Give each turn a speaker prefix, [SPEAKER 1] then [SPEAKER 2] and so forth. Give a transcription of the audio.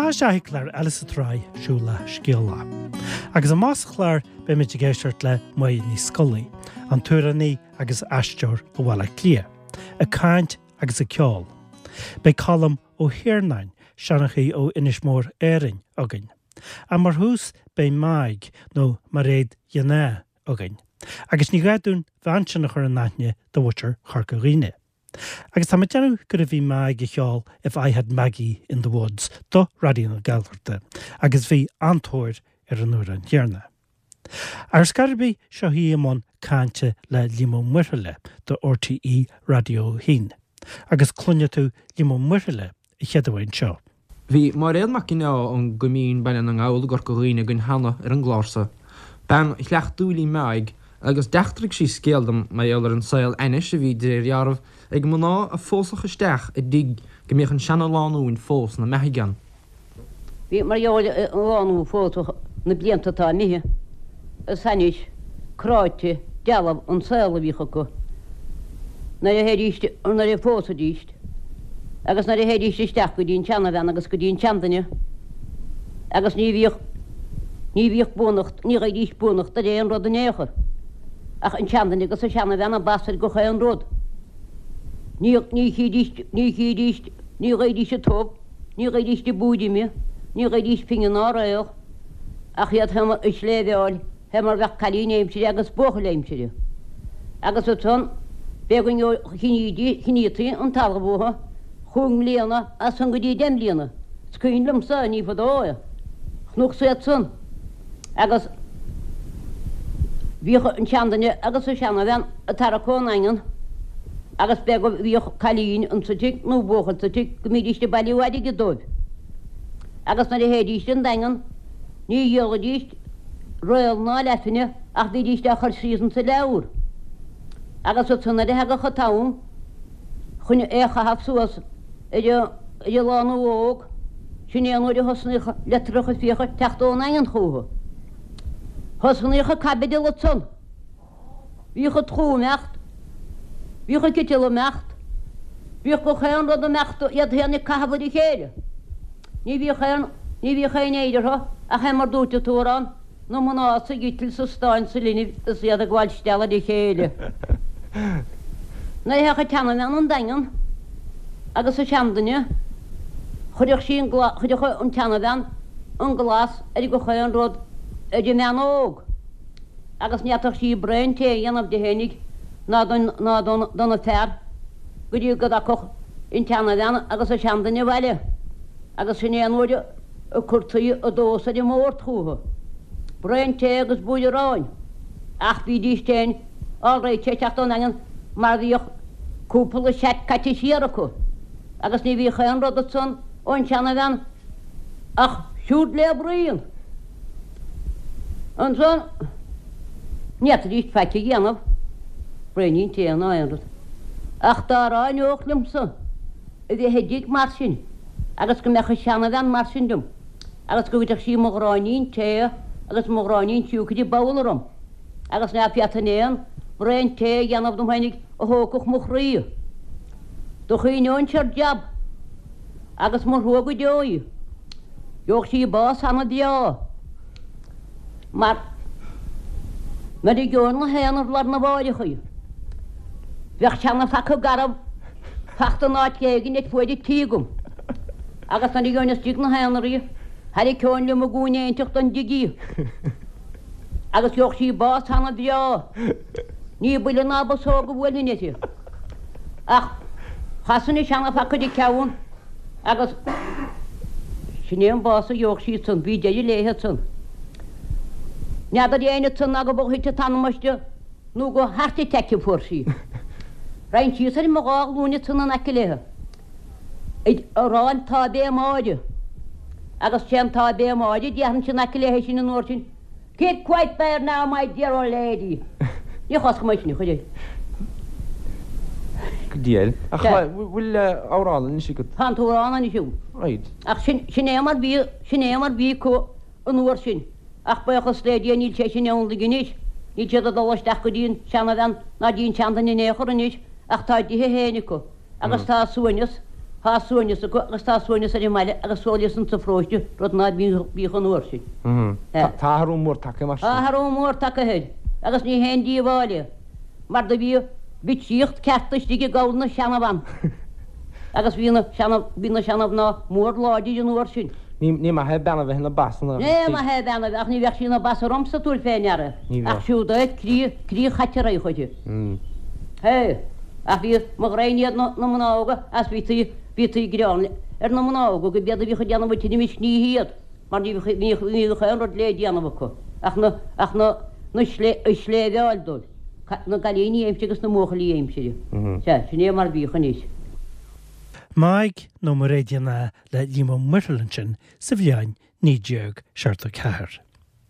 [SPEAKER 1] Seo an seachú clár eile sa tsraith Siúlach Scéalach. Agus amach sa chlár beimid ag éisteacht le Máire Ní Scolaí, an t-amhránaí agus aisteoir ó Bhaile Átha Cliath, ag caint agus ag ceol. Beidh Colm Ó hIarnáin, seanchaí ó Inis Mór Árainn, againn. Ach mar thús beidh Meaig, nó Mairéad Ghineá, againn. Agus ní gá dúinn an bhean sin a chur in aithne do mhuintir Chorca Dhuibhne. Agus tá mé ag déanamh gurbh í Meaig a cheol If I Had Maggie in the Woods do Raidió na Gaeltachta agus bhí an-tóir ar an amhrán chéanna. Ar scor ar bith, seo í i mbun cainte le Liam Ó Muirthile do RTÉ Raidió 1. Agus cluinfidh tú Liam Ó Muirthile a chéaduair anseo.
[SPEAKER 2] Bhí Máiréad Mac Ginneá ón gCoimín, Baile na nGall i gCorca Dhuibhne againn cheana ar an gclár so. Bean chleachtúil í Meáig agus d'eachtraigh sí scéal dom mar gheall ar an saol ainnis a bhí de réir dealraimh ag mná a phósfadh isteach i dtigh go mbíodh an seana-lánúin fós 'na mbeathaidh ann.
[SPEAKER 3] Bhí mar gheall ar an lánúin a phósadh na blianta atá imithe, is ainnis cráite dealbh an saol a bhíodh acu nuair a théidís, nuair a phósaidís. Agus nuair a théidís isteach go dtí an tseanabhean agus go dtí an seanduine, agus ní bhíodh, ní bhíodh buannacht, ní gheibhidís buannacht ar aon rud in aon chor, ach an seanduine agus an seanabhean ab ansa ar gach aon rud. Ní, ní chídís, ní chídís, ní gheibhidís an t-ubh, ní gheibhidís an búid ime, ní gheibhidís pingin ná réal, ach iad féin ag sléibheáil. Fé mar bheadh cailín aimsire agus buachaill aimsire. Agus ansan b'é go gceannaítí an talamh uathu chúig mbliana as san go dtí deich mbliana. Is cuimhin liomsa, ní fadó é, chonacsa iad san agus bhíodh an seanduine agus an seanabhean ag tarrac ón nDaingean agus b'é go bhíodh cailín insa tigh nó buachaill sa tigh go mbídíst ag bailiú airgid dóibh. Agus nuair a théidíst an Daingean ní dhíolaidíst réal ná leathphingin ach bhídíst á chur síos insa leabhar. Agus ansan nuair a thagadh an t-am chun é a chaitheamh suas ar an lánúin óg, sin é an uair a thosnaíodh litreacha fiacha ag teacht ón nDaingean chúthu. Thosnaíodh an caibideal ansan. Bhíodh an tlú ag imeacht, bhíodh an citeal ag imeacht, bhíodh gach aon rud ag imeacht, iad féin ag caitheamh ar a chéile. Ní bhíodh aon, ní bhíodh aon éire orthu ach é mar dúirt an t-amhrán, na mná sa gciteal sa stáin sa linbh is iad ag gabháil stealladh ar a chéile. Nuair a théadh an tseanabhean 'on Daingean agus an seanduine, chuirfeadh sí an glas, chuirfeadh an tseanabhean an glas ar gach aon rud ar an mbean óg. agus ní fhéadfadh sí braon tae a dhéanamh di fhéinig ná don ná don dona fear go dtí go dtagfadh an tseanabhean agus an seanduine abhaile agus sin é an uair a cuirtí an dós ar an mbord chúthu, braon tae agus buaidh aráin. Ach bhídís féin alright ag teacht ón nDaingean mar bhíodh cúpla seat caite siar acu agus ní bhíodh aon rud ansan ón seanabhean ach siúd le braon. Ansan, ní fhéadfaidís faic a dhéanamh, braoinín tae ná aon rud. Ach dá ráineodh liomsa a bheith i dtigh mar sin agus go mbeadh an seanabhean mar sin liom agus go gcuirfeadh sí mo ghráinnín tae agus mo ghráinnín siúcra i babhla orm agus ná féadfainn aon bhraon tae a dhéanamh dom fhéinig a thógfadh mo chroí. Do chuimhneoinnse ar jab agus mo thrua go deo í. Gheobhadh sí bás ana-bhreá mar nuair a gheobhainn 'na haonar lá arna mháireach í, bheadh seana-phaca garbh fachta in áit éigin ar fuaid an tí agam agus nuair a gheobhainn istigh 'na haonar í, tharraiceoinn liom i gcúinne éinteacht den dtigh í agus gheobhadh sí bás ana-bhreá. Ní buille ná bosóg a bhuailfinn uirthi ach chasfainn an seana-phaca ar a ceann Agus sin é an bás a gheobhadh sí ansan, bhí deireadh léithe ansan. N'fheadar éinne ansan ná go b'ó thit an t-anam aisti nó go heart attack a fuair sí. Raghainn síos ar mo dhá ghlúin ansan in aice léithe ag rá an tÁivé Máire. Agus sé an tÁivé Máire a déarfainnse in aice léithe sin an uair sin. Keep quiet there now, my dear old lady. Ní choscfaidh mé sin, a chuir.
[SPEAKER 2] Go diail. Ach bhfuil amhrán anois agat?
[SPEAKER 3] Tá an t-amhrán anois agam.
[SPEAKER 2] Right.
[SPEAKER 3] Ach sin, sin é mar bhí, sin é mar bhí acu an uair sin. Ach buíochas le Dia níl sé sin ann anois. Níl siad ag dul isteach go dtí an seanabhean ná dtí an seanduine in aon chor anois ach tá a dtithe féin acu agus tá a suaimhneas. Tá suaimhneas acu agus tá suaimhneas ar an mbaile agus suaimhneas insa pharóiste, rud ná bíodh an uair sin.
[SPEAKER 2] Tá athrú mór tagtha mar sin.
[SPEAKER 3] Tá athrú mór tagtha air agus ní haon díobháil é mar do bhíodh bitseíocht ceart istigh i gcabhail na seanabhan agus bhí na seana, bhí na seanamhná mór láidir an uair sin.
[SPEAKER 2] Ní maith é bean a bheith ina bas
[SPEAKER 3] ina. Ní maith é bean a bheith, ach ní bheadh sí ina bas ormsa, tabhair fé ndeara.
[SPEAKER 2] Ní bheadh.
[SPEAKER 3] Ach siúd é croí, croí chaite a raghadh uirthi. Hé! Ach bhí, mo ghraidhin iad na, na mná óga, as bhítí, bhítí ag gearán ar na mná óga go b'iad a bhíodh ag déanamh an tinnis ní hiad, mar ní bhíodh, ní bhíodh aon rud le déanamh acu ach na, ach na, na slé, a sléibheáil dóibh, na gcailíní aimsire agus na mbuachaillí aimsire. Sea, sin é mar a bhíodh anois.
[SPEAKER 1] Meaig nó Mairéad Uí Fhinneadha le Liam Ó Muirthile ansin sa bhliain 1974.